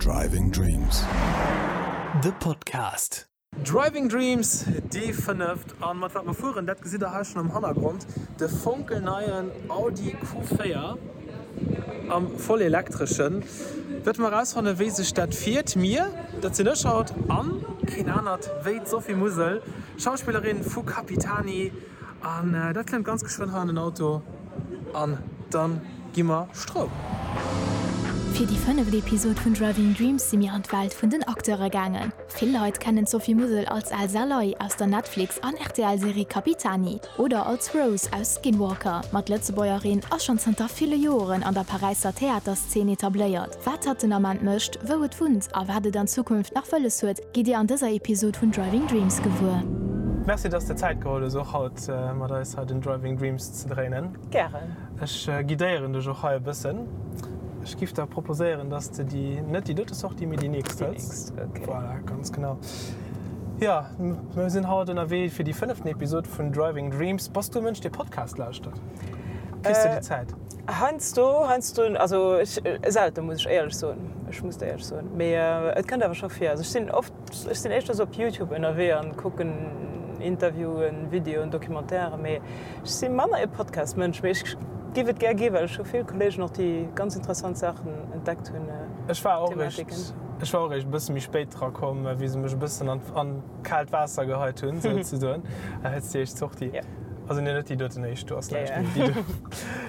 Driving Dreams, de Podcast. Driving Dreams, déi fënneft. An mat wat mer fueren, dat gesitt der hei schonn am Hannergrond, de fonkelneien Audi Q4 am vollelektreschen. Wäerte mer erausfannen, wéi sech dat fiert. Mir, dat sinn ech haut an keen anert wéi d'Sophie Musel, Schauspillerin vu Capitani. An dat klëmmt ganz geschwënn hei an den Auto an dann gi mer Stroum. Fir déi fënneft Episod vun Driving Dreams si mir an d'Welt vun den Acteure gaangen. Vill Leit kennen d'Sophie Musel als Elsa Ley aus der Netflix an RTL-Serie Capitani oder als Rose aus Skinwalker. Ma d'Lëtzebuergerin ass schonn zanter ville Joren an der Paräisser Theaterszeen etabléiert. Wat hatt den Ament mécht, wou et wunnt a wat et an Zukunft nach wëlles huet, Gitt Dir an dëser Episod vun Driving Dreams gewuer. Merci dass de Zäit geholl hues och haut mat eis hei den Driving Dreams ze dréinen. Gären. Ech guidéieren dech och hei e bëssen. Ech giff der proposéieren dass de déi, net déi dote Sortie, mee déi nächst hëls. Déi nächst, ok. Voilà, ganz genau. Jo, mir sinn haut ënnerwee fir déi fënneften Episod vun Driving Dreams. Bass du e Mënsch dee Podcast lauschtert? Kriss de déi Zäit? Heiansdo, heiansdo, also ech, selten, muss ech éierlech soen. Ech muss et éierlech soen. Mee et kënnt awer scho vir. Also ech sinn oft, ech sinn éischter sou op Youtube ënnerwee an kucken Interviewen, Videoen, Documentairen, mee ech si manner e Podcast-Mënsch. Mee ech giff et gär gi, well ech hu vill Kolleegen och, déi ganz interessant Saachen entdeckt hunn, Ech war och eréischt, ech war och eréischt e bësse méi spéit dra komm, wéi se mech e bëssen an, an kaalt Waasser geheit hunn, souzesoen. Hëls déi éischt Sortie. Also nee, net déi doten éischt, do ass näischt, mee déi do.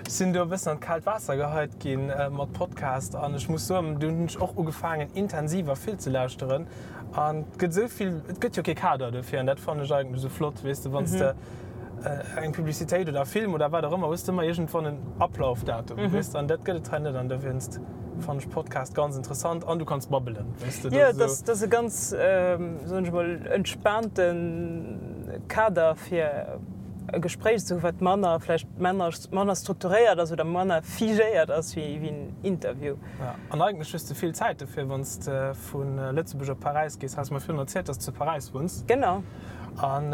Ech sinn do e bëssen an d'kaalt Waasser geheit ginn mat Podcast an ech muss soen, do hunn ech och ugefaangen intensiver vill ze lauschteren an et gëtt esou vill, et gëtt jo kee Kader dofir an dat fannen ech eigentlech esou flott, weess de, wann s de eng Publicitéit oder e Film oder wat och ëmmer hues de ëmmer iergendwann en Ablaufdatum, weess de, an dat gëtt et hei net an dowéinst fannen ech Podcast ganz interessant an du kanns babbelen, weess de. Jo, dat ass e ganz, soen ech emol, entspaante Kader fir e Gespréich ze hu wat manner vläicht manner manner strukturéiert ass oder manner figéiert ass wéi wéi en Interview. Ja, an eigentlech hues de vill Zäit dofir, wann s de vu Lëtzebuerg op Paräis gees. Has mer virun erzielt, dass s de zu Paräis wunns. Genau. An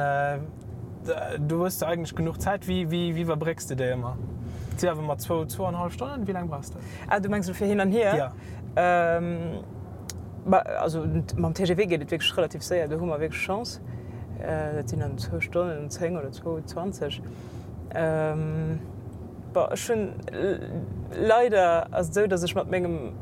do hues de eigentlech genuch Zäit. Wéi wéi wéi iwwerbrécks de déi ëmmer? Et si awer ëmmer zwou, zwou an hallef Stonnen. Wéi laang brauchs de? Ah, du mengs elo fir hin an hier? Ja. Bah, also mam TGV geet et wierklech relativ séier, do hu mer wierklech Chance. Dat sinn dann zwou Stonnen an 10 oder zwou 20. Bon, ech hunn, leider ass et esou, datt ech mat mengem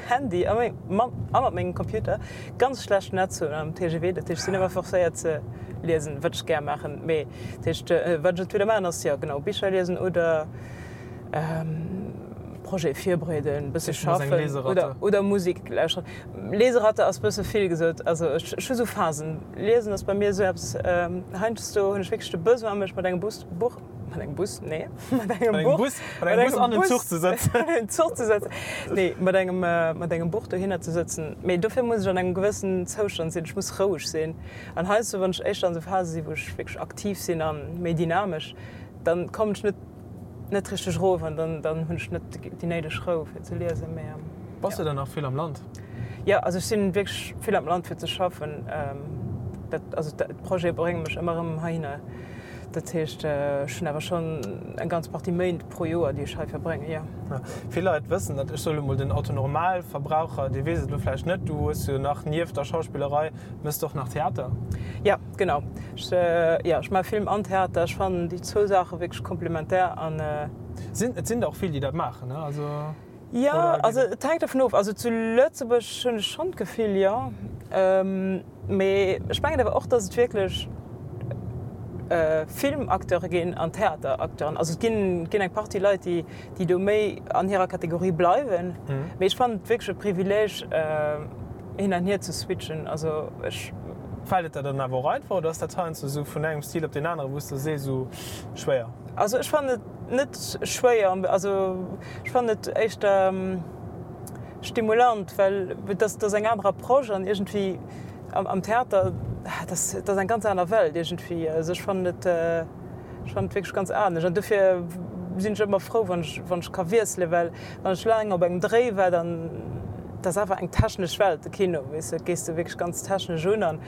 Handy a a mat mengem Computer ganz schlecht Netz hunn am TGV. Dat heescht, ech sinn ëmmer forcéiert ze liesen, wat ech gär maachen. Mee dat heescht, wat ech entweder maachen ass, jo genau, Bicher liesen oder Projet virbereeden, bësse schaffen oder, oder Musek lauschteren. Leseratte ass bësse vill gesot. Also ech, ech hu sou Phasen. Liesen ass bei mir esou eppes, heiansdo hunn ech wierklech de Besoin mech mat engem Bus, Buch, mat engem Bus, nee, mat engem Buch, Bus, mat engem Bus an den Zuch ze sëtzen. An den Zuch ze sëtzen. Nee, mat engem, mat engem Buch dohinner ze sëtzen. Mee dofir muss ech an engem gewëssen Zoustand sinn. Ech muss roueg sinn. An heiansdo, wann ech éischter an esou Phase sinn, wou ech wierklech aktiv sinn a méi dynamesch, dann kommen ech net net richteg erof an dann dann hunn ech net déi néideg Rou fir ze liesen, mee Bass du dann nach vill am Land? Jo, also ech sinn wierklech vill am Land fir ze schaffen. Dat also d'Projete brénge mech ëmmer erëm heihinner. Dat heescht ech hunn awer schonn eng ganz Partie Méint pro Joer déi ech hei verbréngen, jo. Vill Leit wëssen dat, ech soe lo mol den Otto-Normalverbraucher, dee weess et elo vläicht net, du hues jo nach nieft der Schauspillerei Mëss de och nach Theater? Jo, genau. Ech, jo, ech maache Film an Theater. Ech fannen déi zwou Saache wierklech komplementär an. Sinn, et sinn der och vill, déi dat maachen, ne? Also, Jo, also et hänkt dovun of. Also zu Lëtzebuerg hunn ech schonn d'Gefill, jo. Mee ech mengen awer och, datt et wierklech Filmacteure ginn an Theateracteuren. Also et ginn, ginn eng Partie Leit, déi, déi do méi an hirer Kategorie bleiwen. Mee ech fannen et wierklech e Privileeg, hin an hier ze switchen. Also ech. Fält et der dann awer och einfach oder ass dat heiansdo esou vun engem Stil op deen anere wou s de sees esou schwéier? Also ech fannen et net schwéier, also ech fannen et éischter stimulant, well et ass, et ass eng aner Approche an iergendwéi am Theater, dat ass, dat ass eng ganz aner Welt iergendwéi. Also ech fannen et. Ech fannen et wierklech ganz anescht an dofir sinn ech ëmmer frou, wann ech, wann ech ka wiesselen, well wann ech laang op engem Dréi war, dann, dat ass awer eng technesch Welt, de Kino, weess de, dat gees de wierklech ganz technesch un an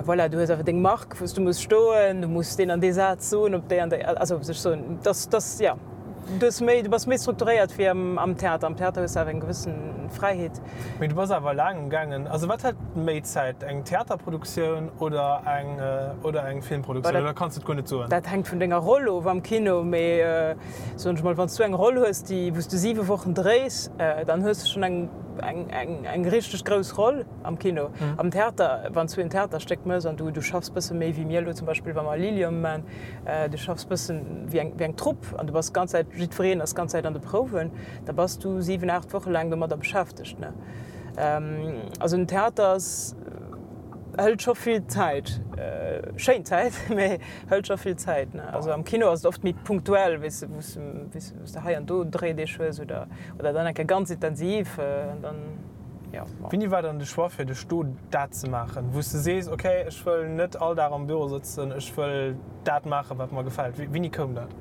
voilà, du hues awer deng Mark, wou s du muss stoen, du muss deen an dee Saz soen op déi an déi, also sech soen, dass, dass, jo. Du hues méi, du bass méi strukturéiert wéi am Theater. Am Theater hues de awer eng gewëssen Fräiheet. Mee du bass awer laang um gaangen. Also wat hëlt méi Zäit, eng Theaterproduktioun oder eng oder eng Filmproduktioun? Oder kanns de et guer net soen? Dat hänkt vun denger Roll of am Kino. Mee soen ech mol, wann s du eng Roll hues, déi wou s du 7 Wochen dréis, dann hues de schonn eng eng eng eng richteg grouss Roll am Kino. Am Theater, wann s du en Theaterstéck mëss an du du schaffs bësse méi wéi mir elo zum Beispill, wa mer Liliom man, Du schaffs bëssen wéi eng, wéi eng Trupp an du bass d'ganz Zäit, jiddwereen ass d'ganz Zäit an de Prouwen, da bass du 7, 8 Woche laang domadder beschäftegt, ne? Also den Theater ass, hëlt scho vill Zäit, schéin Zäit, mä hëlt scho vill Zäit, ne? Also am Kino ass et oft méi punktuell, weess de, wou s de, wou s de hei an do Dréideeg hues oder, oder dann eng Kéier ganz intensiv an dann. Ja, bon. Wéini war dann de Choix fir dech do dat ze maachen, wou s de sees, ok, ech wëll net all Dag am Büro sëtzen, ech wëll dat maachen, wat mer gefält? Wéini koum dat?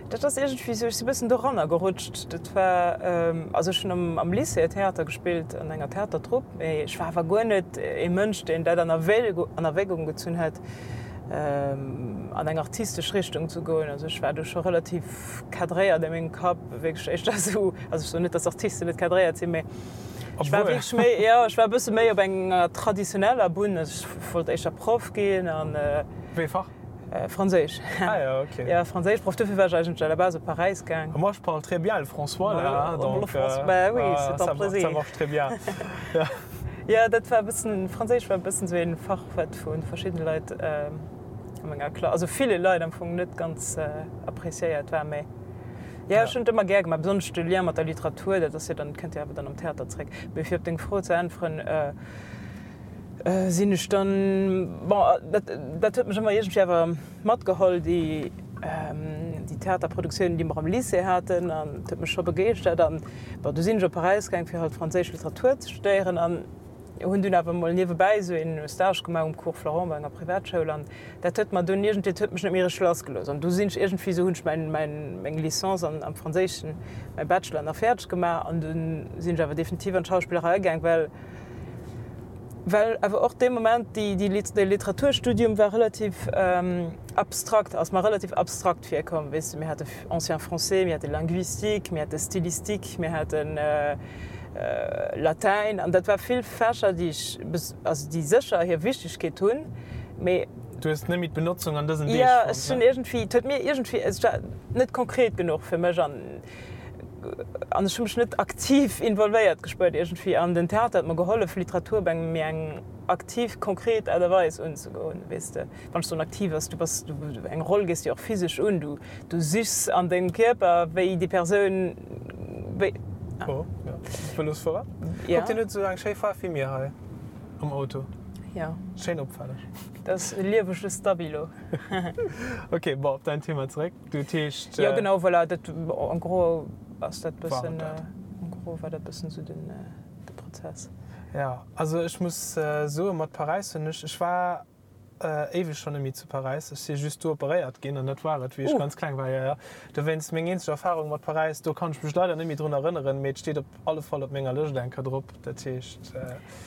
Dat ass iergendwéi esou, ech si bëssen doranner gerutscht. Dat war, also ech hunn am am Lycée Theater gespillt, an enger Theatertrupp, mee ech war awer guer net ee Mënsch, deen dat an an Erwägung gezunn hätt, an eng artistesch Richtung ze goen. Also ech war do scho relativ cadréiert a mengem Kapp, wierklech éischter esou, also ech soen net, datt Artisten net cadréiert sinn, mee Ech war wierklech méi, jo, ech war e bësse méi op enger traditioneller Bunn. Also ech wollt éischter Proff ginn an. Wéi e Fach? Franséisch. Ah jo, ok. Jo, Franséischproff. Dofir war ech eigentlech à la base op Paräis gaang. Moi je parle très bien le françois là, donc Bah oui, c'est un plaisir. Ça marche très bien. Jo, dat war e bëssen, Franséisch war e bëssen esou ee Fach, wat vu verschiddene Leit a menger Klass, also ville Leit am Fong net ganz appréciéiert war, mä. Jo, ech hunn et ëmmer gär gemaach, besonnesch de Lien mat der Literatur, dat ass jo dann, kënnt jo awer dann am Theater zréck. Mee fir op deng Fro ze äntweren, sinn ech dann, bon, dat, dat huet mech ëmmer iergendwéi awer matgeholl, déi, déi Theaterproduktiounen, déi mer am Lycée haten, an et huet mech scho begeeschtert. An bon, du sinn ech op Paräis gaang, fir halt franséisch Literatur ze studéieren an Hunn dunn awer mol niewebäi esou een Stage gemaach um Cours Florent bei enger Privatschoul an dat huet mer dunn iergendwéi, dat huet mech net méi richteg lassgelooss an du sinn ech iergendwéi esou, hunn ech mäin, mäin, meng Licence an am Franséischen, mäi Bachelor nach fäerdeg gemaach an dunn sinn ech awer definitiv an d'Schauspillerei gaang, well, well awer och dee Moment déi, déi, dee Literaturstudium war relativ abstrakt, ass mer relativ abstrakt virkomm, weess de, mir hate Ancien Français, mir hate Linguistique, mir hate Stylistique, mir haten. Latäin, an dat war vill Fächer, déi ech, also déi sécher hir Wichtegkeet hunn, mee. Du hues net méi d'Benotzung an dësen Deeg fonnt, ne? Jo, ech hunn iergendwéi, et huet mir iergendwéi, et war net konkret genuch fir mech an an ech hu mech net aktiv involvéiert gespuert iergendwéi. An den Theater huet mer gehollef, Literatur op eng méi eng aktiv, konkret Aart a Weis unzegoen, weess de. Wann ech soen aktiv ass, du bass, du, eng Roll gees de jo och physesch un, du, du sichs an dengem Kierper, wéi déi Persoun, wéi. Oh, jo. Vëlosfuerer. Ja. Kuck, deen huet esou eng schéi Faarf wéi mir hei am Auto. Ja. Schéin opfälleg. Dat ass e liewege Stabilo. Ok, bon, op däin Thema zeréck. Du, dat heescht. Jo, genau, voilà, dat, en gros ass dat bëssen, en gros war dat bëssen esou den, de Prozess. Ja, also ech muss soen, mat Paräis hunn ech, ech war Éiweg schonn net méi zu Paräis. Ech si just do operéiert ginn an dat war et, wéi ech ganz kleng war. Jo, jo. Dowéinst meng eenzeg Erfarung mat Paräis, do kann ech mech leider net méi drun erënneren, mee et steet op alle Fall op menger Lëscht eng Kéier drop. Dat heescht.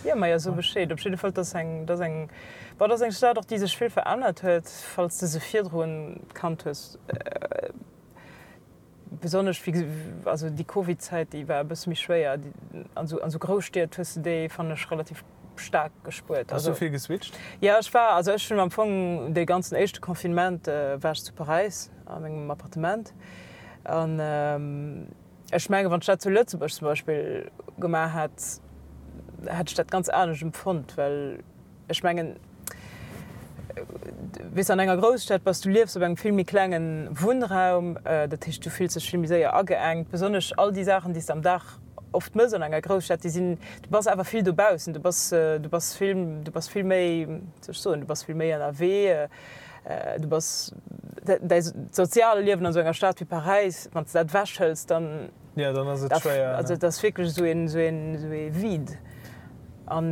Jo, majo, so Bescheed. Op jidde Fall, 't ass eng, 't ass eng, bon, 't ass eng Stad och, déi sech vill verännert huet, falls de se virdrun kannt hues. Besonnesch wéi, also déi Covid-Zäit, déi war e bësse méi schwéier. An esou, an esou Grousstied hues de déi, fannen ech, relativ staark gespuert. Bass du vill geswitcht? Jo, ech war, also ech hunn am Fong dee ganzen éischte Confinement war ech zu Paräis a mengem Appartement. An ech mengen, wann ech dat zu Lëtzebuerg zum Beispill gemaach hätt, hätt ech dat ganz anescht empfonnt, well Ech mengen, weess de, an enger Grousstad bass, du liefs op engem vill méi klenge Wunnraum, dat heescht, du fills dech vill méi séier ageengt. Besonnesch all déi Saachen, déi s de am Dag oft mëss an enger Grousstad, déi sinn, du bass awer vill dobaussen, du bass, du bass vill, du bass vill méi, wéi soll ech soen, du bass vill méi ënnerwee, du bass, däi soziale Liewen an esou enger Stad wéi Paräis, wann s de dat ewechhëls, dann. Jo, dann ass et schwéier. Also et ass wierklech esou een, esou een, esou ee Vide. An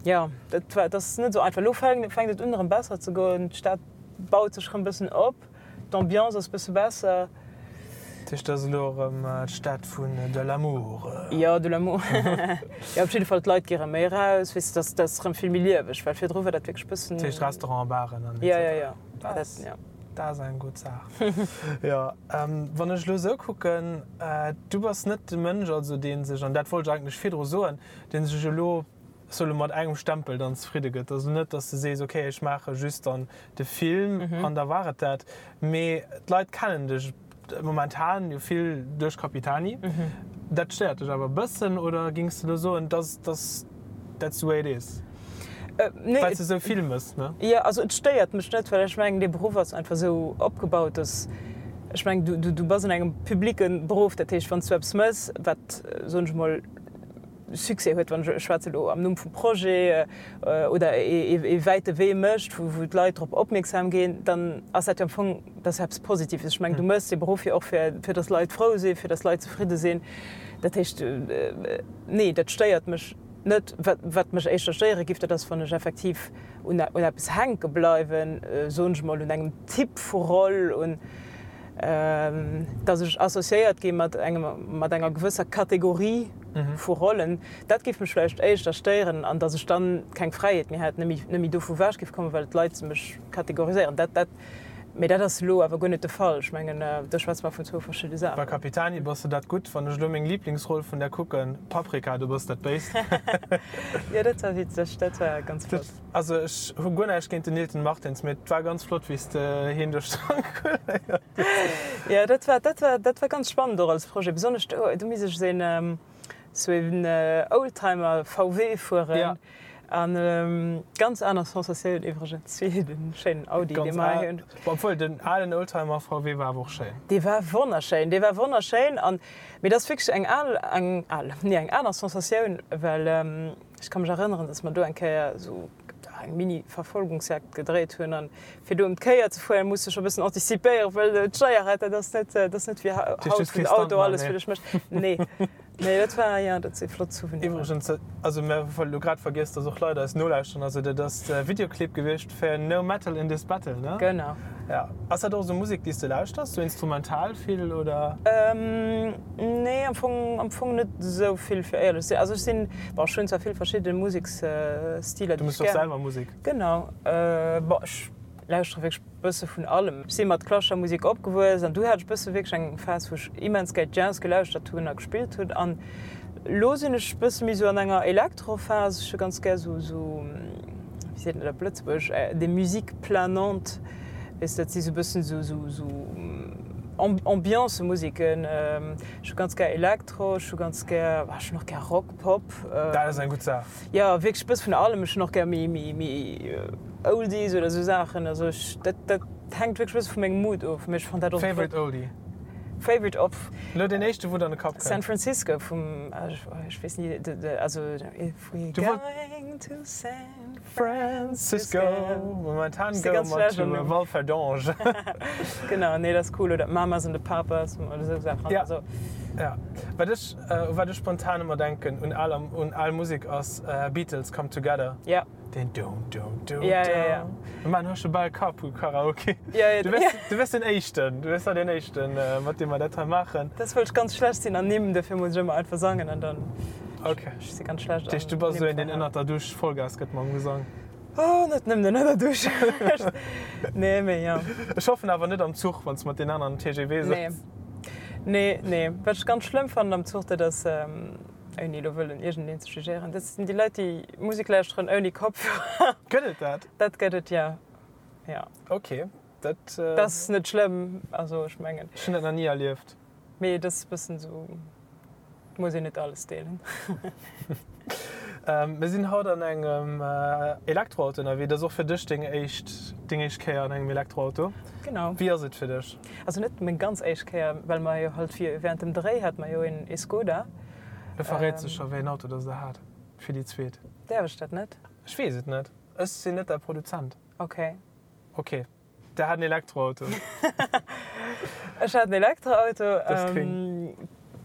jo, dat war, dat ass net esou einfach. Elo fänkt, fänkt et un erëm besser ze goen. D'Stad baut sech erëm e bëssen op, d'Ambiance ass e bësse besser. Dat heescht, dat ass elo erëm d'Stad vun de l'amour? Jo, de l'amour. Jo, op jidde Fall, d'Leit gi erëm méi eraus, weess de, dat ass, dat ass erëm vill méi lieweg, well virdru war dat wierklech e bëssen. Dat heescht Restauranten, Baren an et cetera. Jo, jo, jo. Dat, jo. Dat ass eng gutt Saach. Jo, wann ech elo esou kucken, du bass net de Mënsch, also dee sech, an dat wollt ech eigentlech virdru soen, dee sech elo, ech soe lo mat engem Stempel dann zefridde gëtt. Also net, datt s de sees, okay, ech maache just dann de Film an da war et dat. Mee d'Leit kennen dech momentan jo vill duerch Capitani. Dat stéiert dech awer e bëssen oder géings de elo soen, dass, dass that's the way it is? Nee. Well s de esou vill mëss, ne? Jo, also et stéiert mech net, well ech mengen, dee Beruff ass einfach esou opgebaut, dass, ech mengen, du, du, du bass an engem publique Beruff, dat heescht, wann s du eppes mëss, wat, soen ech emol, Succès huet, wann ech, ech schwätze elo am Numm vum Projet, oder ee wäite Wee mécht, wou, wou d'Leit drop opmierksam ginn, dann ass dat jo am Fong, dat ass eppes Positives. Ech mengen, du méchs dee Beruff jo och fir, fir dass Leit frou sinn, fir dass Leit zefridde sinn. Dat heescht, nee, dat stéiert mech net. Wat, wat mech éischter stéiere giff, dat ass, wann ech effektiv un, un eppes hänke bleiwen, soen ech emol, un engem Typ vu Roll, un, dass ech associéiert gi mat engem, mat enger gewësser Kategorie vu Rollen, dat géif mech vläicht éischter stéieren an dass ech dann keng Fräiheet méi hätt, net méi, net méi dovu ewech géif kommen, well d'Leit mech kategoriséieren. Dat, dat, mee dat ass elo awer guer net de Fall. Ech mengen, do schwätze mer vun zwou verschidde Bei Saachen. Capitani bass de dat gutt. Wann ech elo meng Liblingsroll vun där kucken, Paprika, du bass dat Béist. Jo, dat war witzeg, dat war ganz flott. Also ech hu guer näischt géint den Nilton Martins, mee et war ganz flott wéi s de hien duerch stranguléiert hues. Jo, dat war, dat war, dat war ganz spannend och als Projet, besonnesch do, do misst ech esou een, esou een Oldtimer VW fueren an ganz aner Sensatioun iwwregens wéi de schéinen Audi, dee mer hei hunn. Obwuel den alen Oldtimer VW war awer och schéin. Dee war wonnerschéin, dee war wonnerschéin an, mee dat ass wierklech eng al, eng al, nee eng aner Sensatioun, well. Ech ka mech erënneren, dass mer do eng Kéier esou eng Mini-Verfolgungsjagd gedréit hunn. An fir do ëm d'Kéier ze fueren, muss de scho e bëssen antizipéieren, well d'Steierrad, dat ass net, dat ass net wéi haut, wou den Auto alles fir dech mécht. Nee, nee, dat war, jo, dat si flott Souveniren. Iwwregens, also mir hu elo grad vergiess, dass och Leit eis nolauschteren. Also dat ass de Videoclip gewiescht fir No Metal in This Battle, ne? Genau. Ja. Ass dat och esou Musek, déi s de lauschters, sou instrumental vill, oder? Nee, am Fong, am Fong net esou vill, fir éierlech ze sinn. Also ech sinn, bon, ech hunn zwar vill verschidde Museksstiler, Du déi mëss ech och gär. selwer Musek? Genau. Bon, ech lauschtere wierklech bësse vun allem. Ech si mat klassescher Musek opgewuess an du hat ech bësse wierklech eng Phas, wou ech immens gär Jazz gelauschtert hunn a gespillt hunn. An elo sinn ech bësse méi esou an enger Elektrophas. Ech hu ganz gär esou, esou, wéi seet een dat op Lëtzebuergesch, des musiques planantes. Weess de, dat si sou bëssen sou, sou, sou Ambiance-Musiken. Ech hu ganz gär Elektro, ech hu ganz gär, ech hunn och gär Rock, Pop. Dat ass eng gutt Saach. Jo, wierklech e bësse vun allem. Ech hunn och gär méi, méi, méi Oldies oder sou Saachen. Also ech, dat, dat hänkt wierklech e bësse vu mengem Mood of. Mee ech fannen dat och. Favorite Oldie? Favorite of? Elo deen éischte, wou der an de Kapp kënnt. San Francisco vum, ech weess ni, de, also If we're going to San. Francisco, momentan goe mer zu Walferdange. Genau, nee dat ass cool. Oder Mamas and the Papas oder esou Saachen. Ja, ja. Wat ech, u wat ech spontan ëmmer denken un al, un al Musek ass Beatles Come Together. Ja. Deen do do do do. Ja, ja, ja. Mir maachen haut scho bal Carpool Karaoke. Ja, ja. Du wäers, du wäers den Éischten, du wäers da deen Éischten, mat deem mer dat hei maachen. Dat wëll ech ganz schlecht sinn an Nimm, dofir muss ech ëmmer einfach sangen an dann. Ok. Ech si ganz schlecht Dat heescht, du bass esou een, deen ënnert der Dusch Vollgas gëtt mam Gesang? Oh, net nëmmen ënner der Dusch. Nee, mee jo. Ech hoffen awer net am Zuch, wann s de mat den aneren am TGV sëtz. Nee. Nee, nee. Wat ech ganz schlëmm fannen am Zuch, dat ass, ouni elo wëllen iergendeen ze jugéieren, dat sinn déi Leit, déi Musek lauschteren ouni Kopfhörer. Gëtt et dat? Dat gëtt et, jo. Jo. Ok, dat. Dat ass net schlëmm, also ech mengen. Ech hunn dat nach ni erlieft. Mee et ass e bëssen esou, et muss een net alles deelen. Mir sinn haut an engem Elektroauto ënnerwee. Dat ass och fir dech deng éischt, deng éischt Kéier an engem Elektroauto. Genau. Wéi ass et fir dech? Also net meng ganz éischt Kéier, well mer jo halt während dem Dréi hate mer jo een ee Skoda. Lo verréits de scho wéi een Auto dass der hat fir déi zweet. Däerf ech dat net? Ech weess et net. Ech sinn net däi Produzent. Ok. Ok. Der hat en Elektroauto. Ech hat en Elektroauto. Dat ass gréng.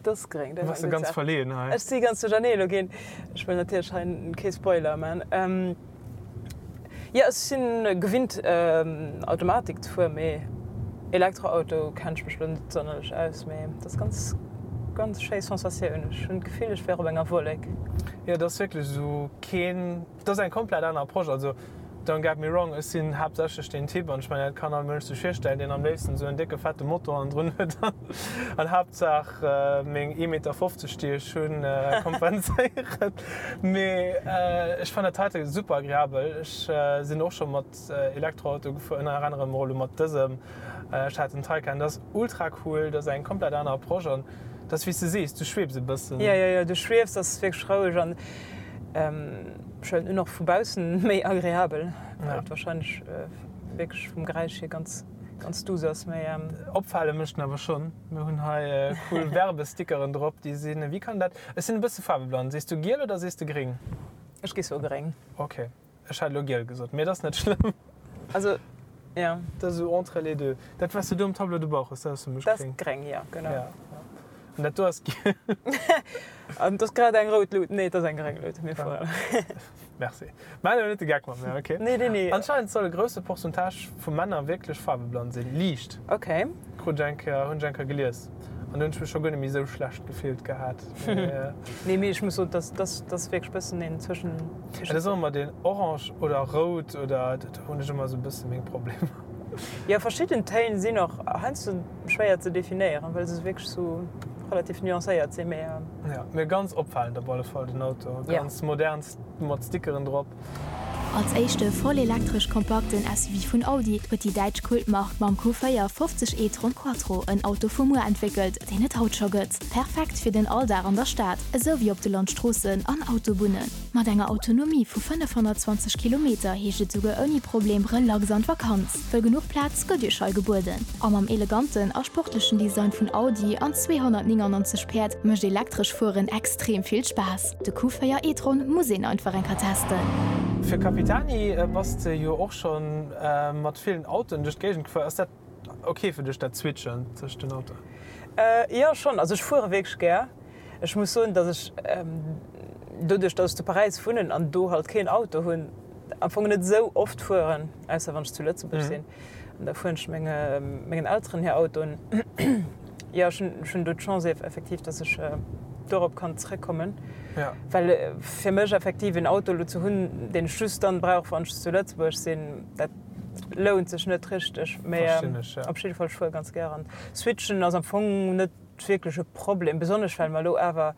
Dat ass gréng. Du bass jo ganz verleeën hei. Ech si ganz duerchernee elo ginn. Ech wëll natierlech hei kee Spoiler man. Jo, ech sinn gewinnt Automatik ze fueren, mee Elektroauto kennen ech mech elo net sonnerlech aus. Mee dat ass ganz, ganz schéi Sensatioun. Ech hunn d'Gefill, ech wär op enger Wollek. Jo, dat ass wierklech esou keen, dat ass eng komplett aner Approche. Also. Don't get me wrong, ech sinn haaptsächlech deen Typ, an ech mengen dat kann all Mënsch sech virstellen, deen am léifsten esou en décke fette Motor hannendrun huet an Haaptsaach meng ee Meter 50 déi ech hunn kompenséieren. Mee ech fannen dat heite super agreabel. Ech sinn och scho mat Elektroauto gefuer, ënner anerem och elo mat dësem. Ech hat den Taycan, dat ass ultra cool, dat ass eng komplett aner Approche an dat ass wéi s de sees, du schwebs e bëssen. Jo, jo, jo, du schwiefs, ass wierklech roueg an Ech huelen un och vu baussen méi agreabel, well et wahrscheinlech wierklech vum Geräisch hier ganz ganz douce ass. Mee. Opfale mécht en awer schonn. Mir hunn hei cool Werbestickeren drop, déi sinn, wéi kann dat, ech sinn e bësse faarweblann, sees du giel oder sees de gréng? Ech géif soe gréng. Ok. Ech hat elo giel gesot, mee et ass net schlëmm. Also, ja. Dat ass esou entre les deux. Dat, wat s de do um Tableau de bord hues, dat ass fir mech gréng. Dat ass gréng, jo, genau. Ja, ja. An dat do ass giel. An et ass grad eng rout Lut. Nee, et ass eng gréng Lut. Mir fueren. Merci. Maach elo net de Geck mat mir, okay? Nee, nee, nee. Anscheinend soll e grousse Pourcentage vu Männer wierklech faarweblann sinn. Liicht. Okay. Krut ech eng Kéier, hunn ech eng Kéier gelies. An do hunn ech mech scho guer net méi esou schlecht gefillt gehat. Nee, mee ech muss soen, dass dass dass wierklech bëssen een zwëschen. Et ass och ëmmer deen orange oder rout oder, do hunn ech ëmmer esou e bësse meng Problemer. Jo, verschidden Téin sinn och heiansdo schwéier ze definéieren, well se wierklech esou relativ nuancéiert sinn, mee. Jo, mee ganz opfalend op alle Fall den Auto, ganz modern mat Stickeren drop. Als éischte vollelektresch kompakten SUV vun Audi huet déi däitsch Kultmark mam Q4 50 e-tron Quattro en Auto vu muer entwéckelt, deen et haut scho gëtt. Perfekt fir den Alldag an der Stad, esou wéi op de Landstroossen an Autobunnen. Mat enger Autonomie vu 520 Kilometer heescht et souguer ouni Problem relax an d'Vakanz, wëll genuch Plaz gëtt iech hei gebueden. A mam eleganten a sportlechen Design vun Audi an 299 Päerd mécht elektresch Fueren extrem vill Spaass. De Q4 e-tron muss een einfach eng Kéier testen. Fir Capitani bass de jo och schon mat villen Autoen duerch d'Géigend gefuer. Ass dat ok fir dech dat Switchen tëscht den Autoen? Jo schon, also ech fuere wierklech gär. Ech muss soen dass ech doduerch dass ech zu Paräis wunnen an do halt keen Auto hunn am Fong net esou oft fueren, ausser wann ech zu Lëtzebuerg sinn an da fueren ech menge mengen Elteren hir Autoen. Jo, ech hunn, ech hunn do d'Chance effektiv, dass ech dorop kann zrëckkommen. Ja. Well fir mech effektiv en Auto elo ze hunn, deen ech just dann brauch, wann ech zu Lëtzebuerg sinn, dat lount sech net richteg. Mee Verstinn ech, ja. op jidde Fall, ech fuere ganz gär an switchen ass am Fong net wierklech e Problem, besonnesch well mer elo awer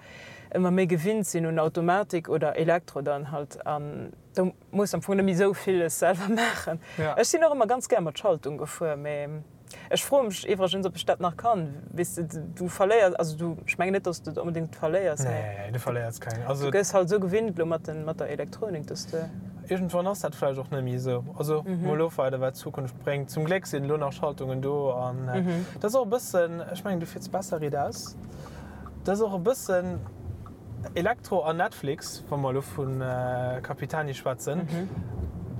ëmmer méi gewinnt sinn un Automatik oder Elektro dann halt an do muss am Fong net méi esou villes selwer maachen. Ja. Ech sinn och ëmmer ganz gär mat Schaltung gefuer, mee Ech froe mech iwwregens, ob ech dat nach kann. Weess de, du verléiers, also du, ech mengen net, dass du et onbedéngt verléiers, mee. Nee, du verléiers keng. Also. Du gëss halt esou gewinnt elo mat den, mat der Elektronik, dass de. Iergendwann ass dat vläicht och net méi esou. Also mol ofwaarden, wat d'Zukunft bréngt. Zum Gléck sinn elo nach Schaltungen do an dat ass och e bëssen, ech mengen, du fiers besser riit aus, dat ass och e bëssen. Elektro an Netflix, wa mer elo vu Capitani schwätzen,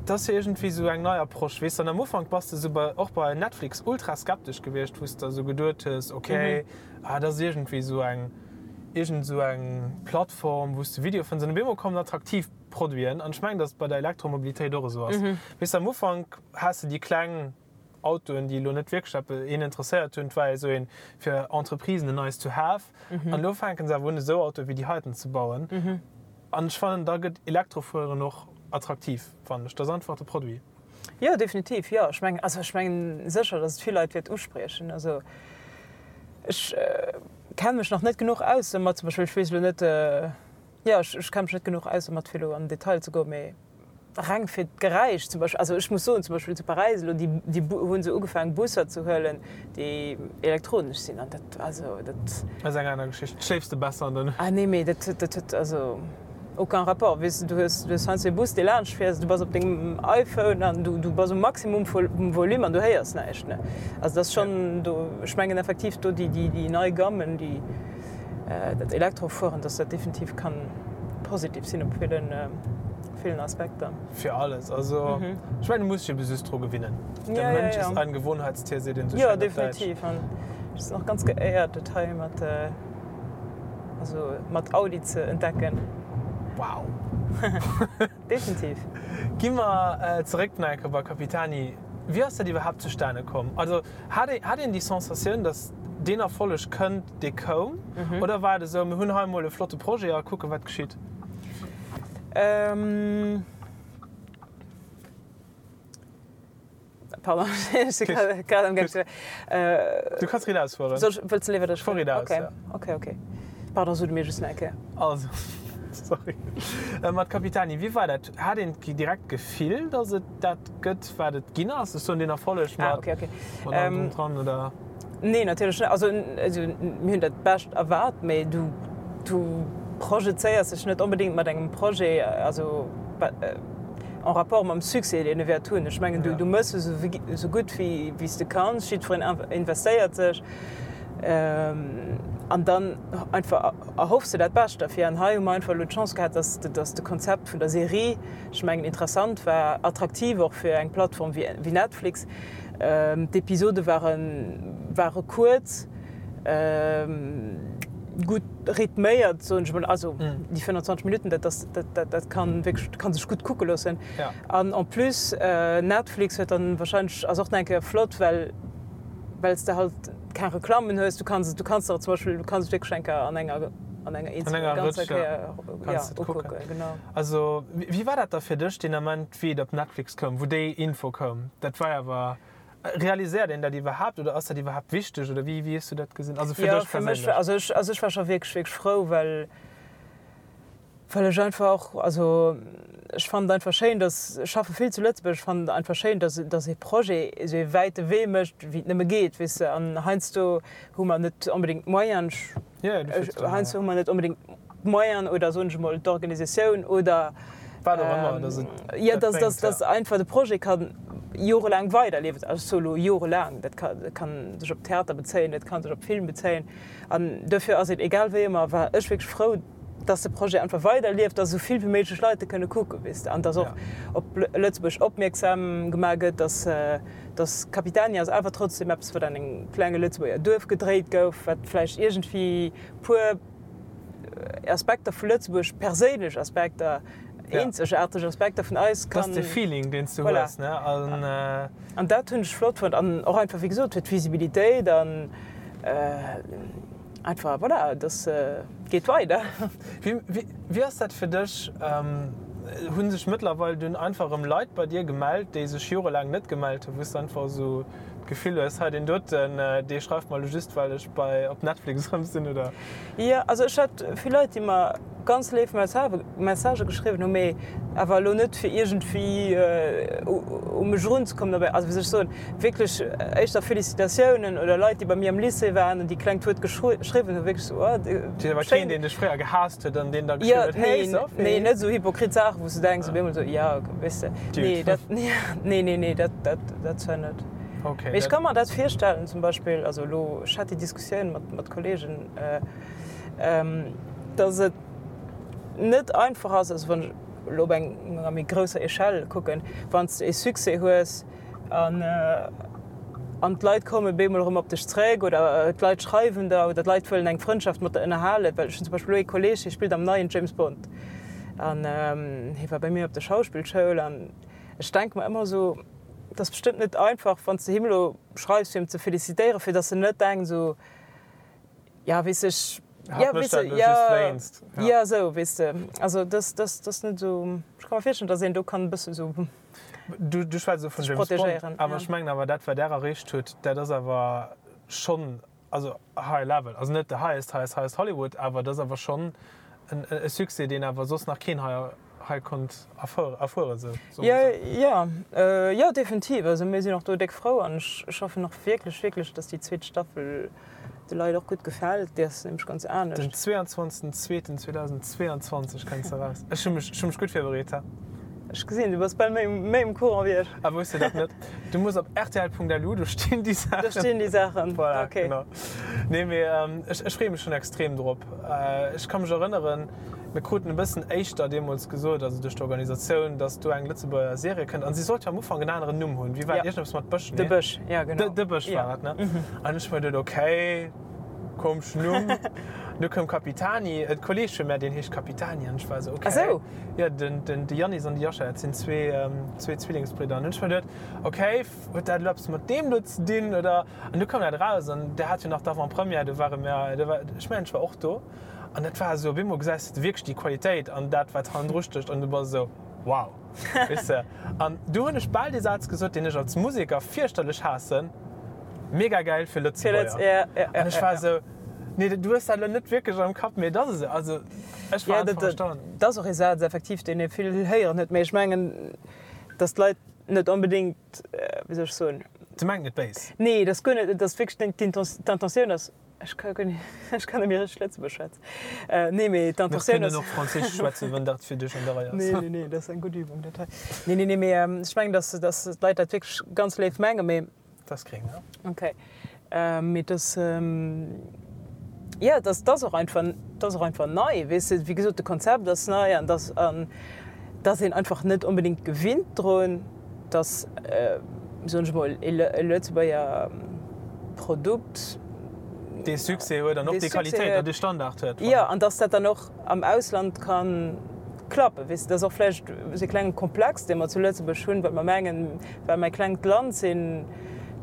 dat ass jo iergendwéi esou eng nei Approche, weess de. An am Ufank bass de esou bei, och bei Netflix ultra skeptesch gewiescht, wou s de esou geduet hues, okay, ah dat ass iergendwéi esou eng, iergend esou eng Plattform, wou s de Videoe fënns. An op eemol kommen attraktiv Produiten. An ech mengen, datt et bei der Elektromobilitéit och esou ass. Weess de, am Ufank has de déi kleng Autoen, déi elo net wierklech eppes een interesséiert hunn, et war esou een fir Entreprisen en nice to have. An elo fänken se awer un esou Autoe wéi déi heiten ze bauen. An ech fannen, da gëtt Elektrofueren och attraktiv, fannen ech. Dat ass einfach de Produit. Jo, definitiv, jo. Ech mengen, also ech mengen sécher, datt et vill Leit wäert uspriechen. Also ech kenne mech nach net genuch aus domat, zum Beispill, ech weess elo net, jo, ech kenne mech net genuch aus domat fir elo an den Detail ze goen, mee Reng fir d'Geräisch zum Beispill, also ech muss soen, zum Beispill zu Paräis elo, déi, déi hu se ugefaangen Busser ze huelen, déi elektronesch sinn an dat, also dat. Ass eng aner Geschicht. Schléifs de besser an der Nuecht? Ah nee, mee dat huet, dat huet also aucun rapport. Weess de, du hues, du hues heiansdo e Bus, dee laanscht fiers, du bass op dengem iPhone an du, du bass um Maximum vum Volume an du héiers näischt, ne. Also dat ass schonn do, ech mengen effektiv do déi, déi, déi nei Gammen, déi dat Elektrofueren, dass dat definitiv kann positiv sinn op villen. Villen Aspekter. Fir alles. Also ech mengen, du muss dech ebe just dru gewinnen. Der Mensch ist ein Gewohnheitstier, seet een esou schéin op Däitsch. Jo, definitiv. An ech sinn och ganz geéiert, dat hei mat, also mat Audi ze entdecken. Wow! Definitiv. Gi mer zeréck nach eng Kéier bei Capitani. Wéi ass dat iwwerhaapt zustane komm? Also hat ee, hat een déi Sensatioun, datt deen Erfolleg kënnt, dee koum? Oder war et esou, mir hunn hei emol e flotte Projet a kucken, wat geschitt? Pardon, ech si grad am gaang ze. Du kanns riit ausfueren. Soll ech, wëlls de léiwer dat ech. Fuer riit aus, ja. Ok, ok. Pardon, so du mir just nach eng Kéier. Also, sorry. Mat Capitani, wéi war dat? Hat een direkt d'Gefill, datt et dat gëtt, wat et ginn ass? Ech soen deen Erfolleg mat. Ah, ok, ok. Mat allem drum dran, oder? Nee, natierlech net. Also, mir hunn dat Bescht erwaart, mee du, du projezéiers dech net onbedéngt mat engem Projet, also en rapport mam Succès, deen e wäert hunn. Ech mengen, du, du méchs esou, esou gutt wéi, wéi s de kanns, jiddwereen investéiert sech an dann einfach erhoffs de dat Bescht derfir. An hei hu mer einfach elo d'Chance gehat, dass, dass de Konzept vun der Serie, ech mengen, interessant war, attraktiv och fir eng Plattform wéi, wéi Netflix. D'Episode ware kuerz, gutt rhythméiert, soen ech mol. Also déi 25 Minutten, dat ass, dat kann wierklech, kann sech gutt kucke loossen. An en plus Netflix huet dann wahrscheinlech, ass och nach eng Kéier flott, well well s de halt keng Reklammen hues. Du kanns et, du kanns der zum Beispill, du kanns et wierklech eng Kéier an enger an enger eenzeler ganzer Kéier, ja, ukucken, genau. Also wéi war dat da fir dech deen Ament? Wéi et op Netflix koum, wou déi Info koum, dat war awer, realiséiert een dat iwwerhaapt oder ass dat iwwerhaapt wichteg oder wéi, wéi hues du dat gesinn? Also fir Jo, dech fir mech, perséinlech? also ech, also ech war scho wierklech, wierklech frou, well, well ech einfach och, also ech fannen et einfach schéin, dass, ech schaffe vill zu Lëtzebuerg, ech fannen et einfach schéin, dass, dass ee Projet esou ee wäite Wee mécht, wéi et nëmme geet, weess de. An heiansdo hu mer net onbedéngt d'Moyenen, ech, heiansdo hu mer net onbedéngt d'Moyenen oder soen ech emol d'Organisatioun oder wat och ëmmer, dass et jo, dass, dass, dass einfach de Projet ka jorelaang weiderliewen. Also ech soe lo jorelaang, dat ka, dat kann sech op Theater bezéien, dat ka sech op Film bezéien. An dofir ass et egal wéi ëmmer, war ech wierklech frou, dass de Projet einfach weiderlieft, dass esou vill wéi méiglech Leit e kënne kucken, weess de, an dass och op Lëtzebuerg opmierksam gemaach gëtt, dass, dass Capitani ass awer trotzdem eppes, wat an engem klenge Lëtzebuerger Duerf gedréit gouf, wat vläicht iergendwéi puer Aspekter vu Lëtzebuerg, perséinlech Aspekter, eenzegaarteg Aspekter vun eis kann. Dat ass de Feeling, deen s du hues, ne? An. An dat hunn ech flott fonnt. An och einfach, wéi gesot, fir d'Visibilitéit an einfach, voilà, dass geet weider. Wéi ass dat fir dech? Hu sech mëttlerweil dunn einfach erëm Leit bei dir gemellt, déi sech jorelaang net gemellt hunn, wou s du einfach esou d'Gefill hues, hei deen doten, dee schreift mer elo just, well ech bei op Netflix erëm sinn, oder? Jo, also ech hat vill Leit, déi mer ganz léif Messagë geschriwwen hunn, mee awer elo net fir iergendwéi u mech erunzekommen, dobäi, also wéi soll ech soen, wierklech éischter Félicitatiounen oder Leit, déi bei mir am Lycée waren an déi klengt Wuert geschriwwen hunn, wierklech esou, oh, schéin. Awer keen, deen dech fréier gehaasst huet an deen da geschriwwen huet, Hey Sophie! Nee, net esou hypokrit Saachen, wou s du denks op eemol esou, jo, weess de, nee, dat, nee, nee, nee, dat, dat, dat zwar net. Mee ech ka mer dat virstellen, zum Beispill, also elo, ech hat déi Diskussioun mat, mat Kollegen, dass et net einfach ass, also wann ech elo op enger méi grousser Echelle kucken, wann s de ee Succès hues an an d'Leit komme bemol erëm op dech zréck oder d'Leit schreiwen der oder d'Leit wëllen eng Frëndschaft mat der ënnerhalen. Well ech hunn zum Beispill elo ee Kolleeg, dee spillt am neien James Bond an hie war bei mir op der Schauspillschoul an ech denke mer ëmmer esou, Et ass bestëmmt net einfach, wann s de him elo schreifs, fir him ze felicitéieren, fir dass en net denkt esou, ja weess ech, ja weess de, ja, ja esou, weess de. Also dass, dass, dass net esou, ech ka mer virstellen, dass een do kann e bësse esou Du, du schwätz elo vun sech James Bond, protegéieren, awer ja. ech mengen awer dat wat där erreecht huet, dat ass awer schonn, also high level, also net the highest, highest, highest Hollywood, awer dat ass awer schonn en e Succès, deen awer soss nach keen hei hei konnt erfueren, sou soe mer esou. Jo, jo, definitiv. Also mir sinn och do déck frou an ech hoffen och wierklech, wierklech, dass déi zweet Staffel de Leit och gutt gefält. Déi ass nämlech ganz anescht. Den 22.02.2022 kënnt se eraus. Ech hu mech, ech hu mech gutt virbereet, he? Ech gesinn, du bass bal méi, méi um Courant wéi ech. A wousst de dat net? Du muss op rtl.lu, do stinn déi Saachen. Do stinn déi Saachen, Voilà, okay. genau. Nee, mee ech, ech freeë mech schonn extrem drop. Ech ka mech erënneren, Mir kruten e bëssen éischter deemools gesot, also duerch d'Organisatioun, dass do eng Lëtzebuerger Serie kënnt. An si sollt jo am Ufank en aneren Numm hunn. Wéi war et? Iergendeppes mat Bësch, nee? De Bësch, ja genau. De Bësch war et, ne? An ech hu mer geduet, okay, komeschen Numm. Du koum Capitani, e Kolleeg vu mär, deen heescht Capitani. An ech war esou, okay. Ah sou? Jo, den, den, de Yannis an de Yasha, dat sinn zwee, zwee Zwillingsbridder. An hunn ech mer geduet, okay, huet dat elo eppes mat deem do ze dinn, oder? An du koum dat eraus an der hat jo nach d'Avant-première, do ware mir, do war, ech mengen, ech war och do. An dat war esou, op eemol gesäis de wierklech déi Qualitéit an dat, wat hannendru stécht an du bass esou. Wow! Weess de? An du hunn ech bal dee Saz gesot, deen ech als Museker fierchterlech haassen, Mega gäil fir Lëtzebuerger. An ech war esou, Nee, du hues dat elo net wierklech am Kapp, mee et ass esou. Also ech war einfach erstaunt. Dat ass och ee Saz effektiv, deen ee vill héieren huet, mee ech mengen, datt d'Leit net onbedéngt, wéi soll ech soen? Se mengen et béis. Nee, dat ass guer net, dat ass wierklech d'Intentioun ass. Ech ka guer net, ech kann net méi richteg Lëtzebuergesch schwätzen. Nee, mee Mir d'Intentioun kënnen ass. och Franséisch schwätzen, wann dat fir dech an der Rei ass. Nee, nee, nee, dat ass eng gutt Übung, dat hei. Nee, nee, nee, mee ech mengen, dass, dass d'Leit dat wierklech ganz léif mengen, mee. Dat ass gréng, ne? Okay. Mee dass, jo, dass, dass och einfach, dass och einfach nei, weess de. Wéi gesot, de Konzept ass nei an dass, an dass een einfach net onbedéngt gewinnt drun. dass, soen ech emol, e Lëtzebuerger Produkt dee Succès huet an och déi Qualitéit an dee Standard huet. Jo, an dass dat dann och am Ausland ka klappen. Weess de, dat ass och vläicht esou e klenge Komplex, dee mer zu Lëtzebuerg hunn, well mer mengen, well mer e klengt Land sinn,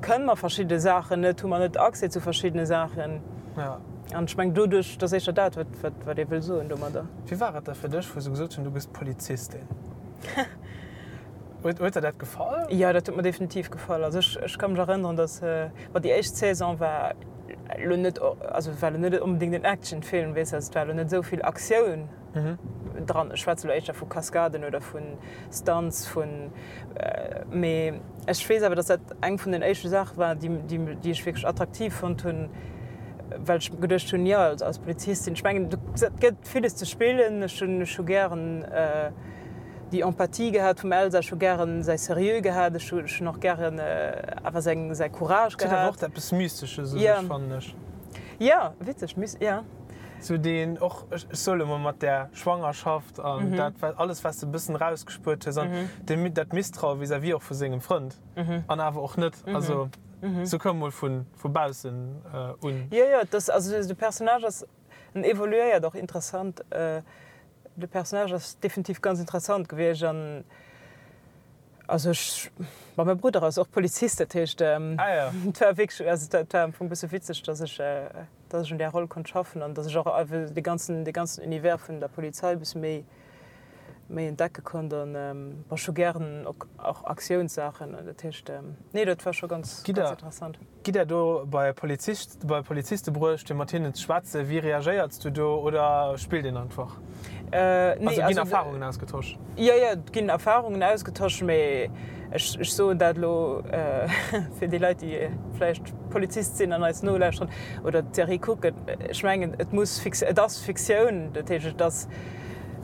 kënne mer verschidde Saachen net, hu mer net Accès zu verschiddene Saachen. An ech mengen, doduerch, dat ass éischter dat, wat ee wëll soen domadder. Wéi war et da fir dech, wou se gesot hunn, du gëss Polizistin? Huet huet der dat gefall? Jo, dat huet mer definitiv gefall. Also ech ech ka mech erënneren, datt bon déi éischt Saison war elo net also war elo net onbedéngt en Actionfilm, weess de, also et war elo net esou vill Aktioun dran. Ech schwätze elo éischter vu Kaskaden oder vu Stunts, vun mee ech weess awer, datt dat eng vun den éischte Saache war, déi déi déi ech wierklech attraktiv fonnt hunn, well ech geduecht hunn, jo als als Polizistin, ech mengen et gëtt villes ze spillen, ech hunn ech hu gären déi Empathie gehat vum Elsa, ech hu gären säi Seriö gehat, ech hunn och gären awer seng säi Courage gehat. Et huet awer och eppes Mystesches u sech, fannen ech. Jo, witzeg, jo. Sou deen och, ech soe lo mol mat där Schwangerschaft an dat wat alles wat s de e bëssen erausgespuert hues an dee dat Misstraue vis-à-vis och vu sengem Frënd an awer och net, also sou koum mol vu vu baussen un. Jo, jo, et ass, also de Personnage ass, en evoluéiert och interessant. De Personnage ass definitiv ganz interessant gewiescht an also ech, ma mäi Brudder ass och Polizist, dat heescht et war wierklech, also et war am Fong e bësse witzeg, datt ech, datt ech un där Roll konnt schaffen an datt ech och einfach dee ganzen, dee ganzen Univers vun der Polizei e bësse méi, méi entdecke konnt an bon, ech hu gären och Aktiounssaachen, dat heescht nee, dat war scho ganz, ganz interessant. Gitt der do bei Polizist, bei Poliziste bruecht fir mat hinnen ze schwätzen? Wéi reagéierts du do oder spillt een einfach? Nee, also ginn Erfarungen ausgetosch? Jo, jo, et ginn Erfarungen ausgetosch, mee ech, ech soen dat elo fir déi Leit, déi vläicht Polizist sinn an eis nolauschteren oder d'Serie kucken, ech mengen, et muss Fikt, et ass Fiktioun, dat heescht, et ass,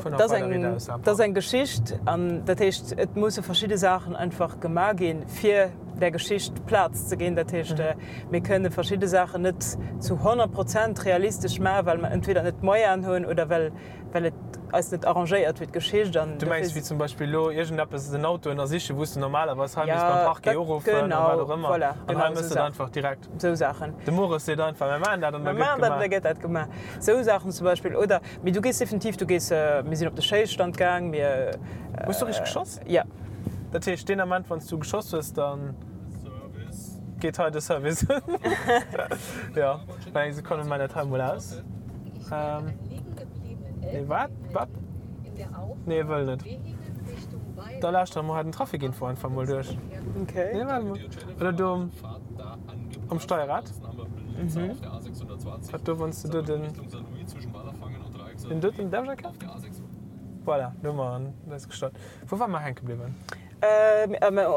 et ass eng, et ass eng Geschicht an dat heescht, et musse verschidde Saachen einfach gemaach ginn, fir der Geschicht Plaz ze ginn. Dat heescht, mir kënne verschidde Saachen net zu 100 Prozent realistesch maachen, well mer entweder net d'Moyenen hunn oder well, well et eis net arrangéiert fir d'Geschicht. An Du mengs wéi zum Beispill elo iergendeppes, en Auto ënnersichen, wou s de normalerweis hei misst beim Parquet uruffen a wat och ëmmer. Voilà, An hei méchs de et einfach direkt. Esou Saachen. De Mores seet einfach, mir maachen dat an da gëtt gemaach. Mir maachen dat an da gëtt dat gemaach. Esou Saachen zum Beispill. Oder, mee du gees definitiv, du gees, mir sinn op de Schéisstand gaang, mir. Hues du richteg geschoss? Jo. Dat heescht, deen Ament, wann s du geschoss hues, da geet hei de Service un. Jo, mä eng Sekonn, mir maachen dat hei emol aus. Nee, wat? Wat? Nee, e wëll net. Da lauschtere mer hei den Trafikinfo einfach emol duerch. Nee, waart emol. Oder do um Steierrad. Wat do, wann s du do den, den doten, däerf ech erkennen? Voilà, do hu mer en ausgestallt. Wou ware mer hänke bliwwen?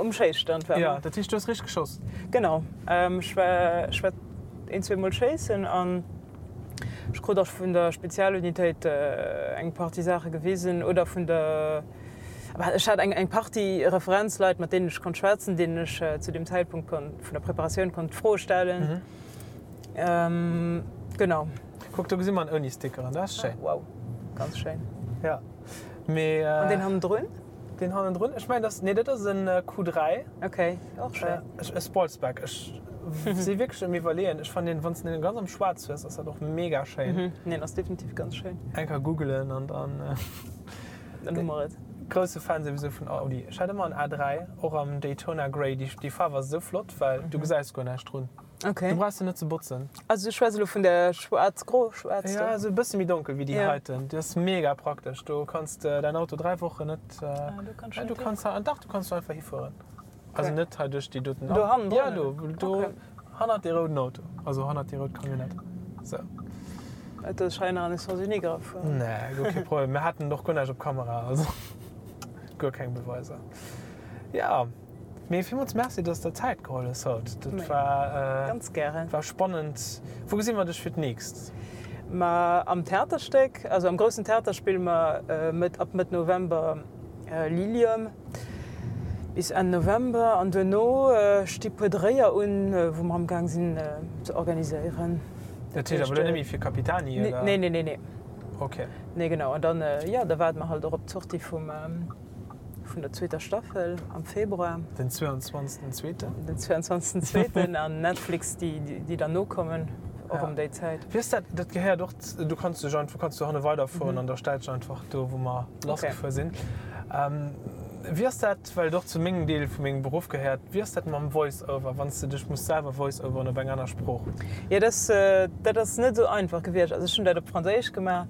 Um Schéisstand ware mer. Jo, dat heescht, du hues richteg geschoss? Genau. Ech war, ech war een, zweemol schéissen an ech krut och vun der Spezialunitéit eng Partie Saache gewisen oder vun der, ech hat eng, eng Partie Referenzleit, mat deenen ech konnt schwätzen, deenen ech zu deem Zäitpunkt konnt, vun der Preparatioun konnt Froe stellen. Genau. Kuck, do gesi mer en ouni Stickeren, dat ass schéin. Wow, ganz schéin. Ja. Mee, An deen hannendrun? Deen hannendrun? Ech mengen, dat, nee, dat ass en Q3. Okay, och schéin. E Sportsback. Ech si wierklech um Iwwerleeën. Ech fannen deen, wann s de deen ganz am Schwaarz hues, ass dat och mega schéin. Mhm, deen ass definitiv ganz schéin. Eng Kéier googelen an dann. Dann hu mer et. Grousse Fan souwisou vun Audi. Ech hat ëmmer en A3, och am Daytona Grey. Déi, déi Faarf ass esou flott, well du gesäis guer näischt drun. Okay. Du brauchs se net ze botzen. Also du schwätz elo vun der schwaarz-gro, schwaarz do? Ja, esou e bësse méi donkel wéi déi heiten. Déi ass mega praktesch. Do kanns de däin Auto 3 Wochen net. Ah, do kanns du net hifueren. Dach, do kanns du einfach hifueren. Also net hei duerch déi doten. Do hannendrun? Ja, do, do hannert dee rouden Auto. Also hannert déi rout Camionnette. Sou. Et ass hei nach an de Sens unique erafueren. Nee, guer kee Problem. Mir haten och guer näischt op Kamera, also guer keng Beweiser. Ja. Mee villmools Merci, dass de der Zäit geholl hues haut. Dat war, Ganz gären. war spannend. Wou gesi mer dech fir d'nächst? Ma am Theaterstéck, also am groussen Theater spille mer Mëtt, ab Mëtt November Lilium bis Enn November an duerno sti puer Dréier un, wou mer amgaang sinn ze organiséieren. Dat heescht awer elo net méi fir Capitani, oder? Nee, nee, nee, nee. Okay. Nee, genau. An dann, jo, da waarde mer halt och op d'Sortie vum. Vun der zweeter Staffel am Februar. Den 22 zweeten. Den 22 zweeten an Netflix déi déi dann nokommen och ëm déi Zäit. Wéi ass dat, dat gehéiert och, du kanns dech einfach, kanns du hanne weiderfueren an da stellt sech einfach do wou mer lassgefuer sinn. Wéi ass dat, well et och zu mengem Deel vu mengem Beruff gehéiert, wéi ass dat mam Voice-over, wann s de dech muss selwer voice-overen op eng aner Sprooch? Jo dat dat ass net esou einfach gewiescht. Also ech hunn dat op Franséisch gemaach.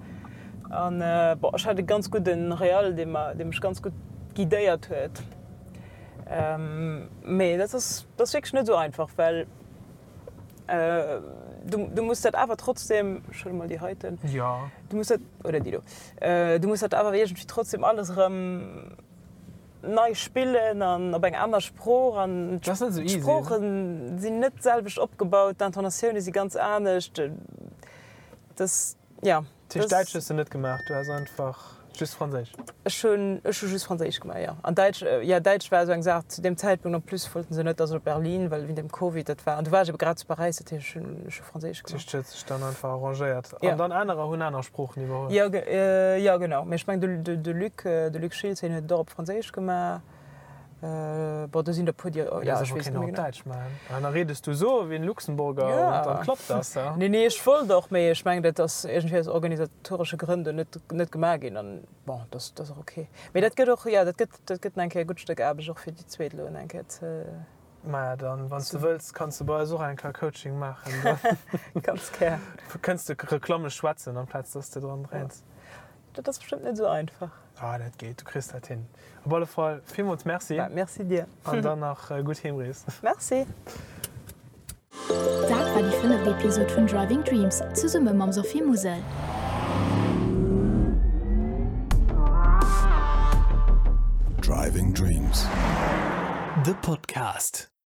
An bon, ech hat e ganz gudden Real, dee mer, dee mech ganz gutt guidéiert huet. Mee dat ass, dat ass wierklech net esou einfach, well du, du muss dat awer trotzdem, ech huele mol déi heiten, Jo. du muss dat, oder déi do, du muss dat awer iergendwéi trotzdem alles erëm nei spillen an op eng aner Sprooch an d'Sprooche sinn net d'selwecht opgebaut, d'Intonatioune si ganz anescht, dat. Ja. Dat heescht, Däitsch hues de net gemaach, du has einfach just Franséisch? Ech hunn, ech hu just Franséisch gemaach, jo. An Däitsch, jo, Däitsch war esou eng Saach zu deem Zäitpunkt. En plus wollten se net, dass ech op Berlin, well wéint dem Covid dat war. An du war ech ebe grad zu Paräis, dat heescht, ech hunn, ech hu Franséisch gemaach. Dat heescht, et huet sech dann einfach arrangéiert. An dann anerer hunn aner Sproochen iwwerholl? Jo, jo, genau. Mee ech mengen, de, de Luc, de Luc Schiltz, hien huet et och op Franséisch gemaach. Bon, do sinn der puer, déi, jo, ech weess net méi genau. Däitsch maachen. An da redes du esou ewéi en Luxemburger an dann klappt das, ja? Nee, nee, ech wollt och, mee ech mengen, dat ass iergendwéi aus organisatoresche Grënn do net, net gemaach ginn. An bon, dat ass, dat ass och ok. Mee dat gëtt och, jo, dat gëtt, dat gëtt nach eng Kéier e gutt Stéck Aarbecht och fir déi zweet elo nach eng Kéier ze. Maja, dann, wann s de wëlls, kanns de bei eis och eng Kéier Coaching maachen. Ganz gär. Kënns de Reklamme schwätzen, amplaz dass de dran dréins. Dat ass bestëmmt net esou einfach. Ah, dat geet, du kriss dat hin. Op alle Fall villmools Merci. Bah, merci dir. An dann nach gutt Heemrees. Merci. Dat war déi fënneft Episod vun Driving Dreams zesumme mam Sophie Musel. Driving Dreams, de Podcast.